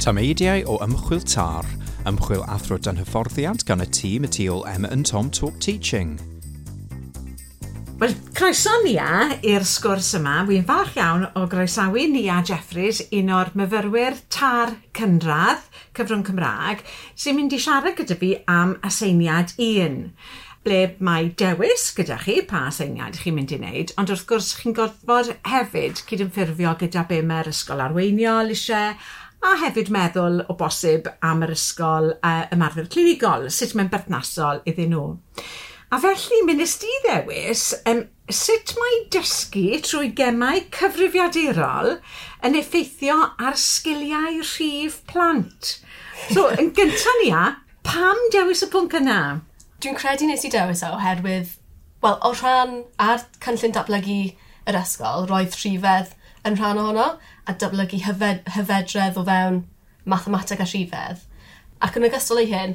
Tameidiau o Ymchwil TAR, ymchwil athro dan hyfforddiant gan y tîm y tu ôl Emma and Tom Talk Teaching. Wel, croeso Nia i'r sgwrs yma. Wy'n falch iawn o groesawu Nia Jeffreys, un o'r myfyrwyr TAR cynradd, cyfrwng Cymraeg, sy'n mynd i siarad gyda fi am aseiniad 1 ble mae dewis gyda chi pa aseiniad chi'n mynd i wneud, ond wrth gwrs chi'n gorfod hefyd cydymffurfio gyda be mae'r ysgol arweiniol eisiau, a hefyd meddwl o bosib am yr ysgol ymarfer clinigol, sut mae'n berthnasol iddyn nhw. A felly, mi nes di ddewis sut mae dysgu trwy gemau cyfrifiadurol yn effeithio ar sgiliau rhif plant. So, yn gyntaf Nia, pam dewis y pwnc yna? Dwi'n credu nes i dewis o oherwydd, wel, o rhan ar cynllun datblygu yr ysgol, roedd rhifedd yn rhan ohono, a datblygu hyfedredd o fewn mathemateg a rhifedd. Ac yn ogystal â hyn,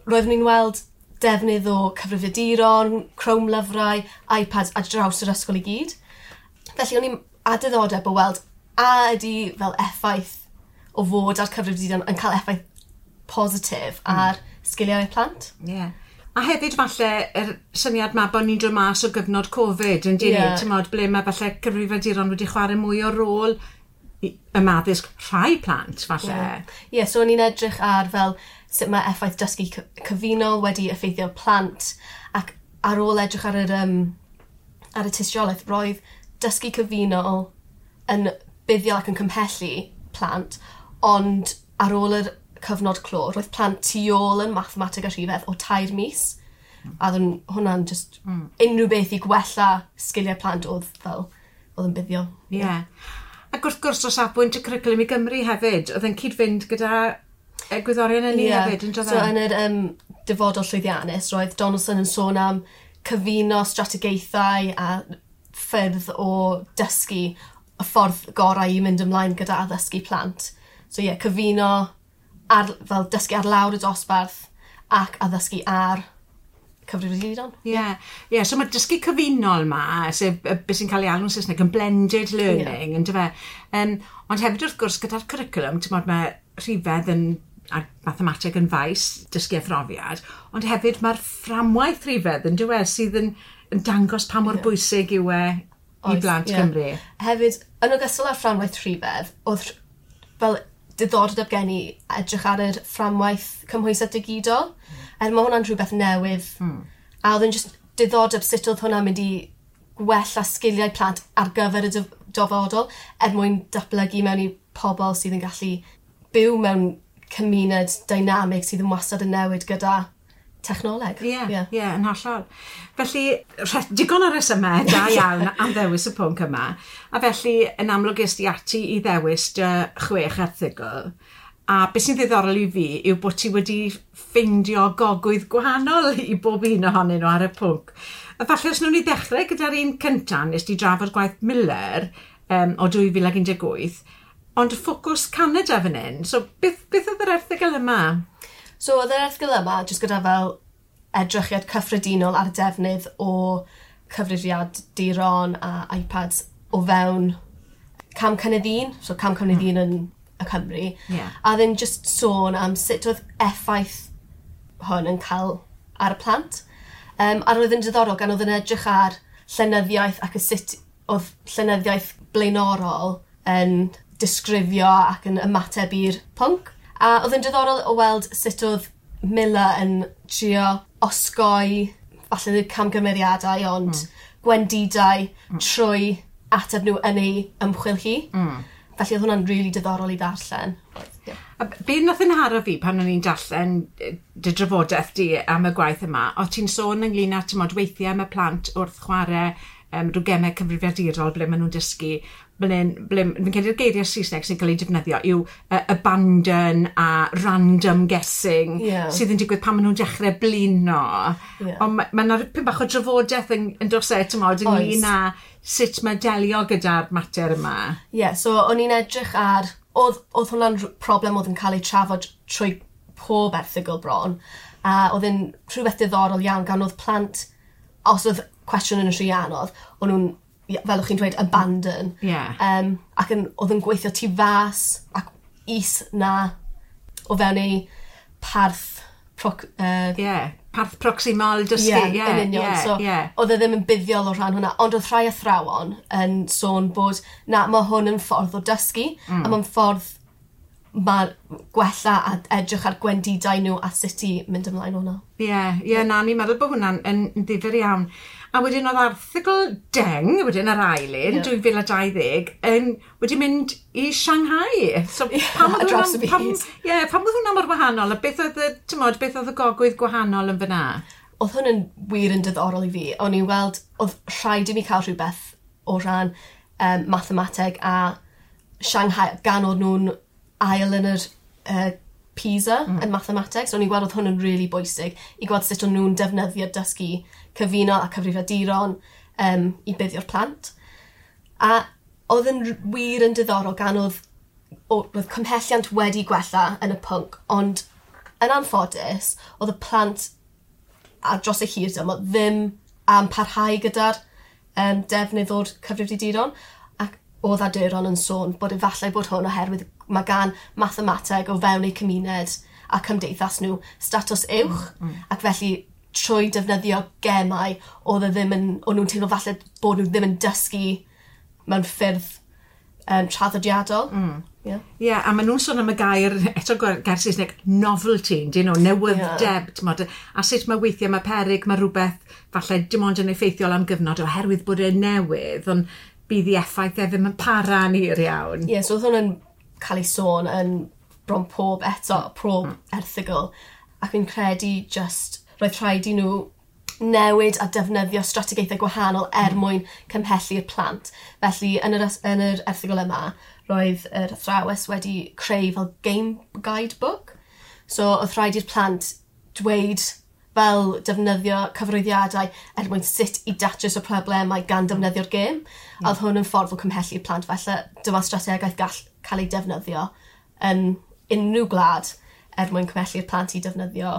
roeddwn i'n weld defnydd o cyfrifiaduron, Chrome lyfrau, iPads ar draws yr ysgol i gyd. Felly o'n i'n a diddordeb o weld a ydy fel effaith o fod ar cyfrifiaduron yn cael effaith positif ar sgiliau plant. Ie. Yeah. A hefyd falle yr syniad 'ma bod ni'n dod mas o gyfnod Covid yn dyn ni, t'mod, ble mae falle cyfrifiaduron wedi chwarae mwy o rôl ym addysg rhai plant falle. Ie, yeah, so o'n i'n edrych ar fel sut mae effaith dysgu cyfunol wedi effeithio plant, ac ar ôl edrych ar yr ar y tystiolaeth, roedd dysgu cyfunol yn buddiol ac yn cymhellu plant, ond ar ôl yr cyfnod clo, roedd plant tu ôl yn mathemateg a rhifedd o 3 mis. A oedd hwnna'n just unrhyw beth i gwella sgiliau plant oedd fel, oedd yn buddiol. Ie. Yeah. Ac wrth gwrs o safbwynt y cwricwlwm i Gymru hefyd, oedd yn cyd-fynd gyda egwyddorion ynni hefyd, yn So yn yr dyfodol llwyddiannus, roedd Donaldson yn sôn am cyfuno strategaethau a ffyrdd o dysgu y ffordd gorau i mynd ymlaen gyda addysgu plant. So ie, yeah, cyfuno ar, fel dysgu ar lawr y dosbarth ac addysgu ar cyfrifiaduron. Ie, yeah. So mae dysgu cyfunol ma, sef beth sy'n cael ei alw'n Saesneg yn blended learning, yeah. Yndyfe? Ond hefyd wrth gwrs gyda'r cwricwlwm, t'mod, mae rhifedd yn a mathemateg yn faes dysgu a phrofiad, ond hefyd mae'r fframwaith rhifedd yn dywe sydd yn dangos pa mor bwysig yw e i blant Cymru. Hefyd, yn ogystal â'r fframwaith rhifedd, oedd fel diddordeb gen i edrych ar yr fframwaith cymhwysedd digidol. Er mae hwnna'n rhywbeth newydd. A oedd yn just diddordeb sut oedd hwnna'n mynd i gwella sgiliau plant ar gyfer y dyfodol er mwyn datblygu mewn i pobl sydd yn gallu byw mewn cymuned dynamig sydd yn wastad yn newid gyda technoleg. Ie, ie, yn hollol. Felly, digon o resymau da iawn am ddewis y pwnc yma. A felly, yn amlwg es di ati i ddewis dy 6 erthygl. A beth sy'n ddiddorol i fi yw bod ti wedi ffeindio gogwydd gwahanol i bob un ohonyn nhw ar y pwnc. A falle os nhw'n i ddechrau gyda'r un cyntaf, nes di drafod gwaith Miller o 2018, ond ffocws Canada fan hyn. So, beth oedd yr erthygl yma? So, oedd yr erthygl yma jyst gyda fel edrychiad cyffredinol ar defnydd o cyfrifiaduron a iPads o fewn cam cynnydd un, so cam cynnydd un yn y Cymru. Yeah. A ddim just sôn am sut oedd effaith hwn yn cael ar y plant. A roedd yn diddorol gan oedd yn edrych ar llenyddiaeth ac y sut oedd llenyddiaeth blaenorol yn disgrifio ac yn ymateb i'r pwnc. A oedd yn diddorol o weld sut oedd Miller yn trio osgoi falle ddim camgymeriadau, ond gwendidau trwy ateb nhw yn ei ymchwil hi. Felly oedd hwnna'n rili diddorol i ddarllen. Yeah. A be nath yn haro fi pan o'n i'n darllen dy drafodaeth di am y gwaith yma, o ti'n sôn ynglyn â, t'mod, weithiau mae plant wrth chwarae rhyw gemau cyfrifiadurol ble maen nhw'n dysgu, ble fi'n credu'r geiriau Saesneg sy'n cael ei defnyddio yw abandon a random guessing sydd yn digwydd pan maen nhw'n dechrau blino. Yeah. Ond mae yna ripyn bach o drafodaeth yn dos e, t'mod, ynglyn â sut mae delio gyda'r mater yma. Ie, yeah, so o'n i'n edrych ar... Oedd hwnna'n problem oedd yn cael ei trafod trwy pob erthygl bron, a oedd yn rhywbeth diddorol iawn gan oedd plant, os oedd cwestiwn yn rhy anodd, o'n nhw'n, fel o'ch chi'n dweud, abandon. Yeah. Ac oedd yn gweithio tu fas ac is na o fewn ei parth Parth proximal dysgu. Ie, yn union. So, oedd e ddim yn buddiol o rhan hwnna, ond oedd rhai athrawon yn sôn bod, na, mae hwn yn ffordd o dysgu, a mae'n ffordd mae gwella a edrych ar gwendidau nhw a sut i mynd ymlaen hwnna. Ie, na, ni'n meddwl bod hwnna'n yn ddifyr iawn. A wedyn oedd erthygl deng, wedyn yr ail un, 2020, wedi mynd i Shanghai. So, pam oedd hwnna mor wahanol? A beth oedd beth oedd y gogwydd gwahanol yn fyna? Oedd hwn yn wir yn diddorol i fi. O'n i'n weld, oedd rhaid i mi cael rhywbeth o ran mathemateg a Shanghai, gan oedd nhw'n ail yn yr PISA yn mathemateg. So o'n i'n gweld oedd hwn yn really bwysig i gweld sut o'n nhw'n defnyddio dysgu cyfunol a cyfrifiaduron i buddio'r plant. A oedd yn wir yn diddorol gan oedd cymhelliant wedi gwella yn y pwnc, ond yn anffodus, oedd y plant ar dros y hir dymor ddim am parhau gyda'r defnydd o'r cyfrifiaduron, ac oedd awduron yn sôn bod efallai bod hwn oherwydd mae gan mathemateg o fewn eu cymuned a cymdeithas nhw statws uwch, ac felly trwy defnyddio gemau oedd e ddim yn, o'n nhw'n teimlo falle bod nhw ddim yn dysgu mewn ffyrdd traddodiadol. Yeah. Yeah, a maen nhw'n sôn am y gair, eto gair Saesneg, novelty, dyn nhw, newydd-deb, yeah. A sut mae weithiau mae peryg, mae rhywbeth falle dim ond yn effeithiol am gyfnod oherwydd bod e'n newydd, ond bydd ei effaith e ddim yn para'n hir iawn. Ie, yeah, so oedd hwn yn cael ei sôn yn bron pob eto, pob erthygl, ac fi'n credu just roedd rhaid i nhw newid a defnyddio strategaethau gwahanol er mwyn cymhellu'r plant. Felly, yn yr erthygl yma, roedd yr athrawes wedi creu fel game guidebook. So, oedd rhaid i'r plant dweud fel defnyddio cyfarwyddiadau er mwyn sut i datrys y problemau gan defnyddio'r gêm. A oedd hwn yn ffordd o cymhellu'r plant. Felly, dyma strategaeth gall cael ei defnyddio yn unrhyw gwlad er mwyn cymhellu'r plant i defnyddio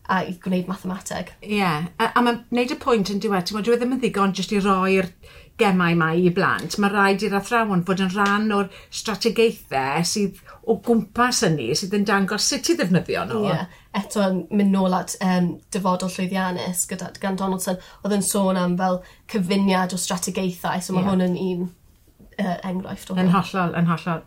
a i gwneud mathemateg. Ie, yeah. A mae'n gwneud y pwynt yn diwedd, ti'n gwbod, dyw e ddim yn ddigon jyst i roi'r gemau 'ma i blant. Mae rhaid i'r athrawon fod yn rhan o'r strategaethau sydd o gwmpas hynny, sydd yn dangos sut i ddefnyddio nhw. Ie, yeah. Eto yn mynd nôl at Dyfodol Llwyddiannus gyda, gan Donaldson, oedd yn sôn am fel cyfuniad o strategaethau, so mae hwn yn un enghraifft o Yn hollol, yn hollol.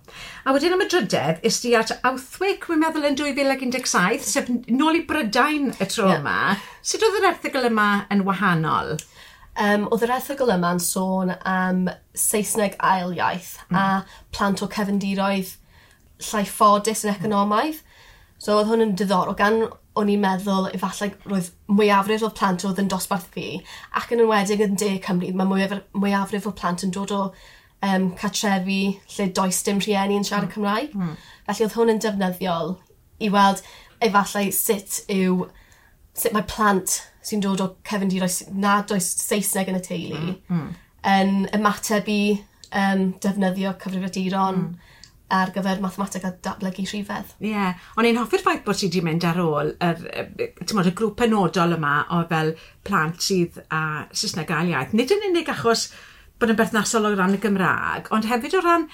A wedyn am y drydedd, es di at Outhwick, wi'n meddwl yn 2017, sef nôl i Brydain y tro yma. Sut oedd yr erthygl yma yn wahanol? Oedd yr erthygl yma'n sôn am Saesneg ail iaith a plant o cefndiroedd llai ffodus yn economaidd. So oedd hwn yn diddorol gan o'n i'n meddwl efallai roedd mwyafrif o'r plant oedd yn dosbarth fi ac yn enwedig yn De Cymru, mae mwyafrif o plant yn dod o cartrefi lle does dim rhieni yn siarad Cymraeg. Felly oedd hwn yn defnyddiol i weld efallai sut mae plant sy'n dod o cefndiroedd nad oes Saesneg yn y teulu yn ymateb i defnyddio cyfrifiaduron ar gyfer mathemateg a datblygu rhifedd. Ie, yeah. O'n i'n hoffi'r ffaith bod ti wedi mynd ar ôl yr, t'mod, y grŵp penodol yma o fel plant sydd â Saesneg ail iaith. Nid yn unig achos bod yn berthnasol o ran y Gymraeg, ond hefyd o ran,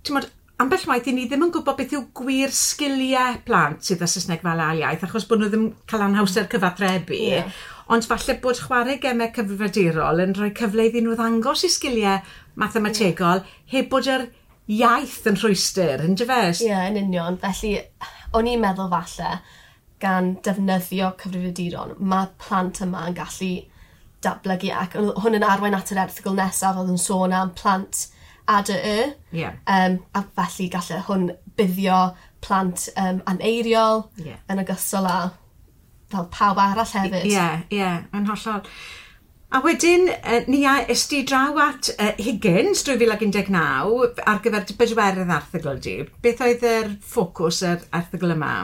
t'mod, ambell waith i ni ddim yn gwybod beth yw gwir sgiliau plant sydd â Saesneg fel ail iaith, achos bod nhw ddim cael anhawster cyfathrebu. Ond falle bod chwarae gemau cyfrifiadurol yn rhoi cyfle iddyn nhw ddangos i sgiliau mathemategol heb bod yr iaith yn rhwystr, yn dyfe? Ie, yeah, yn union. Felly, o'n i'n meddwl falle gan defnyddio cyfrifiaduron, mae plant yma yn gallu datblygu ac oedd hwn yn arwain at yr erthygl nesaf oedd yn sôn am plant ADY. A felly gallai hwn buddio plant aneiriol yn ogystal â fel pawb arall hefyd. Ie, yn hollol. A wedyn, ni a es di draw at Higgins 2019 ar gyfer dy bedwerydd erthygl di. Beth oedd yr ffocws yr erthygl yma?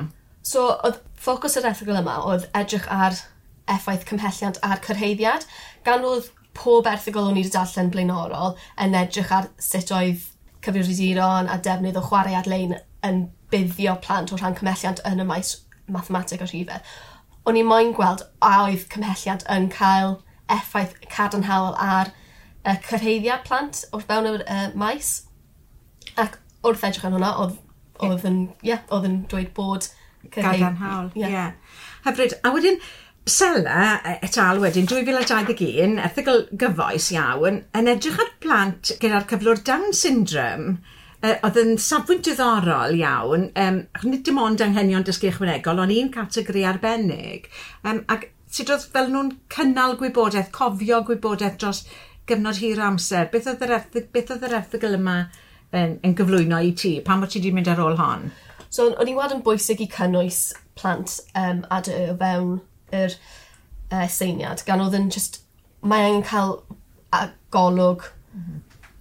So, oedd ffocws yr erthygl yma oedd edrych ar effaith cymhelliant a'r cyrhaeddiad, gan oedd pob erthygl o'n i wedi darllen blaenorol yn edrych ar sut oedd cyfrifiaduron a defnydd o chwarae ar-lein yn buddio plant o rhan cymhelliant yn y maes mathemateg a rhifedd. O'n i moyn gweld a oedd cymhelliant yn cael effaith cadarnhaol ar cyrhaeddiad plant o'r fewn yr maes. Ac wrth edrych ar hwnna, oedd yn, yeah, oedd yn dweud bod Gadarnhaol, ie. Yeah. Hyfryd. A wedyn, Sela et al wedyn, 2021, erthygl gyfoes iawn, yn edrych ar plant gyda'r cyflwr Down syndrome, oedd yn safbwynt diddorol iawn, nid dim ond anghenion dysgu ychwanegol, ond un categori arbennig, ac sut oedd fel nhw'n cynnal gwybodaeth, cofio gwybodaeth dros gyfnod hir o amser. Beth oedd yr erthygl yma yn gyflwyno i ti? Pam o't ti wedi mynd ar ôl hon? So, o'n i'n weld yn bwysig i cynnwys plant ADY o fewn yr seiniad, gan oedd yn just, mae angen cael golwg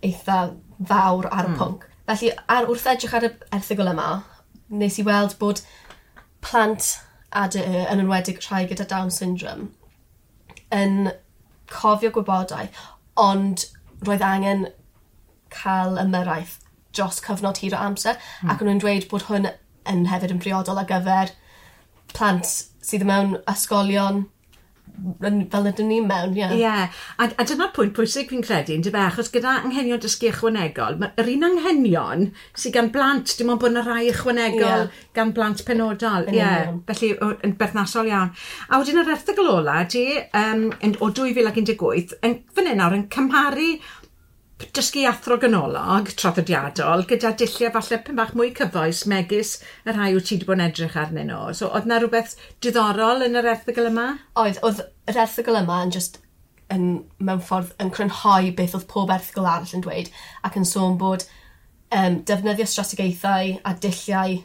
eitha fawr ar y pwnc. Felly, wrth edrych ar y erthygl yma, nes i weld bod plant ADY, yn enwedig rhai gyda Down syndrome, yn cofio gwybodaeth, ond roedd angen cael ymyrraeth dros cyfnod hir o amser, ac o'n nhw'n dweud bod hwn yn hefyd yn briodol ar gyfer plant sydd mewn ysgolion fel ydyn ni mewn, ie. Ie, a dyna'r pwynt pwysig fi'n credu, yndyfe, achos gyda anghenion dysgu ychwanegol, yr un anghenion sydd gan blant, dim ond bod yna rai ychwanegol gan blant penodol. Ie, felly yn berthnasol iawn. A wedyn yr erthygl ola di, o 2018, yn fan hyn nawr yn cymharu dysgu athro ganolog traddodiadol gyda dulliau falle pyn bach mwy cyfoes megis y rhai wyt ti wedi bod yn edrych arnyn nhw. So oedd 'na rhywbeth diddorol yn yr erthygl yma? Oedd yr erthygl yma yn just yn, mewn ffordd yn crynhoi beth oedd pob erthygl arall yn dweud ac yn sôn bod defnyddio strategaethau a dulliau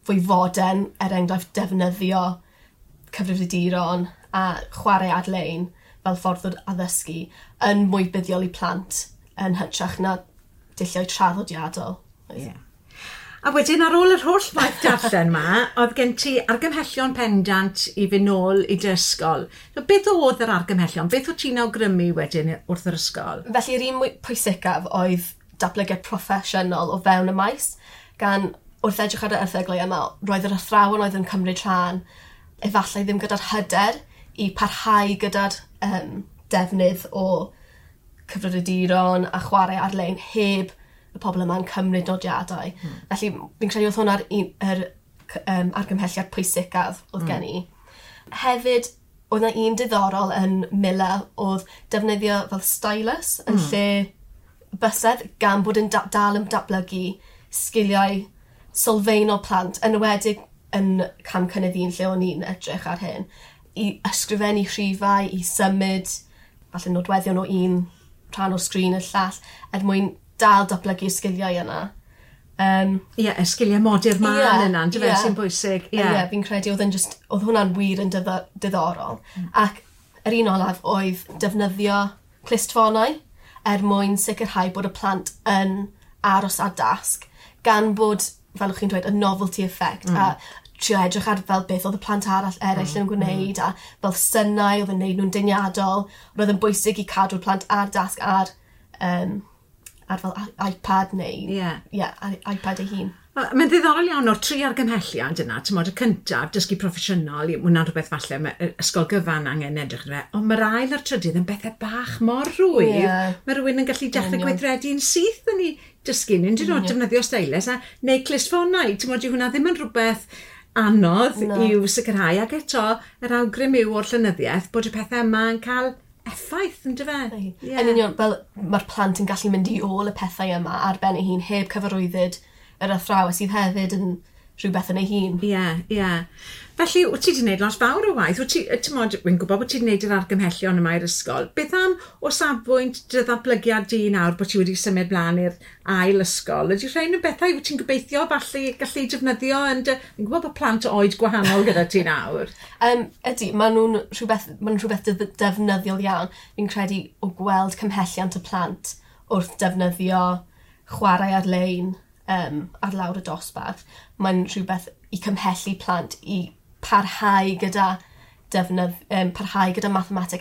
fwy fodern, er enghraifft defnyddio cyfrifiaduron a chwarae ar-lein fel ffordd o addysgu yn mwy buddiol i plant yn hytrach na dulliau traddodiadol. Yeah. A wedyn ar ôl yr holl waith darllen ma, oedd gen ti argymhellion pendant i fynd nôl i dy ysgol. So, beth oedd yr argymhellion? Beth oedd ti'n awgrymu wedyn wrth yr ysgol? Felly yr un mwy pwysicaf oedd datblygiad proffesiynol o fewn y maes, gan wrth edrych ar y erthyglau yma, roedd yr athrawon oedd yn cymryd rhan efallai ddim gyda'r hyder i parhau gyda'r defnydd o cyfrifiaduron a chwarae ar-lein heb y pobl yma'n cymryd nodiadau. Felly fi'n credu oedd hwnna'r argymhelliad pwysicaf oedd gen i. Hefyd, oedd 'na un diddorol yn Miller oedd defnyddio fel stylus yn lle bysedd gan bod yn dal yn datblygu sgiliau sylfaenol plant, yn enwedig yn cam cynnydd un lle o'n i'n edrych ar hyn, i ysgrifennu rhifau, i symud falle nodweddion o un rhan o'r sgrin i'r llall, er mwyn dal datblygu'r sgiliau yna. Ie, y sgiliau modur mân yna, yndyfe, sy'n bwysig. Ie, fi'n credu oedd hwnna'n wir yn diddorol. Ac yr un olaf oedd defnyddio clustffonau er mwyn sicrhau bod y plant yn aros ar dasg, gan bod, fel o'ch chi'n dweud, y novelty effect, a trio edrych ar fel beth oedd y plant arall eraill yn gwneud, a fel synau oedd yn gwneud nhw'n deniadol. Roedd yn bwysig i cadw'r plant ar dasg ar fel iPad neu iPad ei hun. Mae'n ddiddorol iawn o'r tri argymhelliad yna, ti'n y cyntaf, dysgu proffesiynol, hwnna'n rhywbeth falle mae ysgol gyfan angen edrych arno fe, ond mae'r ail a'r trydydd yn bethau bach mor rhwydd. Mae rhywun yn gallu dechrau gweithredu'n syth yn ei dysgu, yn dyn nhw defnyddio stylus a neu clustffonau, ti'n dyw hwnna ddim yn rhywbeth anodd i'w sicrhau, ac eto yr awgrym yw o'r llenyddiaeth bod y pethau yma yn cael effaith, yndyfe? Yn union, fel mae'r plant yn gallu mynd i ôl y pethau yma ar ben ei hun heb cyfarwyddyd yr athrawes sydd hefyd yn rhywbeth yn ei hun. Ie, ie. Felly, wyt ti wedi gwneud lot fawr o waith? Wyt ti, ti'n wy'n gwybod bod ti wedi gwneud yr argymhellion yma i'r ysgol. Beth am o safbwynt dy ddatblygiad di nawr bod ti wedi symud mlaen i'r ail ysgol? Ydy rhain yn bethau wyt ti'n gobeithio falle gallu defnyddio yn dy... Fi'n gwybod bod plant oed gwahanol gyda ti nawr. Ydy, maen nhw'n rhywbeth defnyddiol iawn. Fi'n credu o gweld cymhelliant y plant wrth defnyddio chwarae ar-lein ar lawr y dosbarth, mae'n rhywbeth i cymhellu plant i parhau gyda parhau gyda mathemateg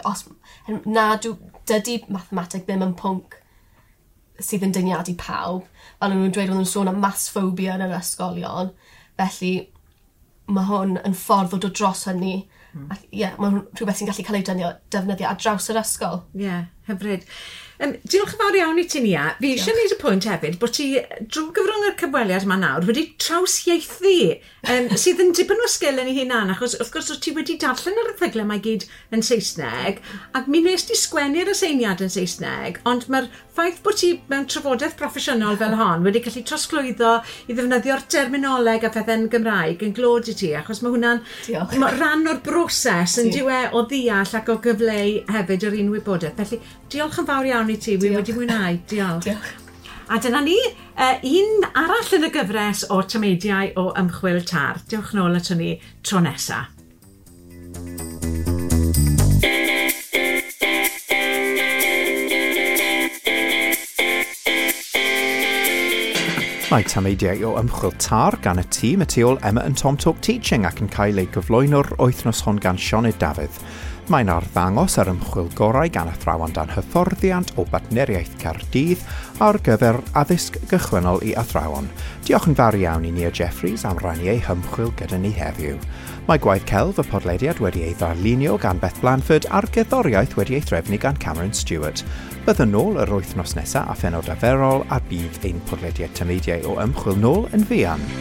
os dydy mathemateg ddim yn pwnc sydd yn dyniadu pawb. Fel o'n nhw'n dweud, o'n nhw'n sôn am maths phobia yn yr ysgolion. Felly mae hwn yn ffordd o dod dros hynny. Ac ie, mae'n rhywbeth sy'n gallu cael ei defnyddio ar draws yr ysgol. Ie. Hyfryd. Diolch yn fawr iawn i ti, Nia. Fi eisiau gwneud y pwynt hefyd bod ti drwy gyfrwng yr cyfweliad yma nawr wedi trawsieithu, sydd yn dipyn o sgil yn ei hunan, achos wrth gwrs ti wedi darllen yr erthygle 'ma i gyd yn Saesneg, ac mi nes di sgwennu'r aseiniad yn Saesneg, ond mae'r ffaith bod ti mewn trafodaeth proffesiynol fel hon wedi gallu trosglwyddo i ddefnyddio'r terminoleg a phethau'n Gymraeg yn glod i ti, achos mae hwnna'n ma rhan o'r broses yn dyw e o ddeall ac o gyfleu hefyd yr un wybodaeth. Felly diolch yn fawr iawn i ti, wi wedi mwynhau. Diolch. Diolch. A dyna ni, un arall yn y gyfres o tameidiau o ymchwil TAR. Diolch nôl ato ni tro nesa. Mae tameidiau o ymchwil TAR gan y tîm y tu ôl Emma and Tom Talk Teaching ac yn cael ei gyflwyno'r wythnos hon gan Sioned Dafydd. Mae'n arddangos yr ymchwil gorau gan athrawon dan hyfforddiant o Bartneriaeth Caerdydd ar gyfer addysg gychwynnol i athrawon. Diolch yn fawr iawn i Nia Jeffreys am rannu ei hymchwil gyda ni heddiw. Mae gwaith celf y podlediad wedi ei ddarlunio gan Beth Blanford a'r gerddoriaeth wedi ei threfnu gan Cameron Stewart. Byddwn nôl yr wythnos nesaf a phenod arferol a bydd ein podlediad tameidiau o ymchwil nôl yn fuan.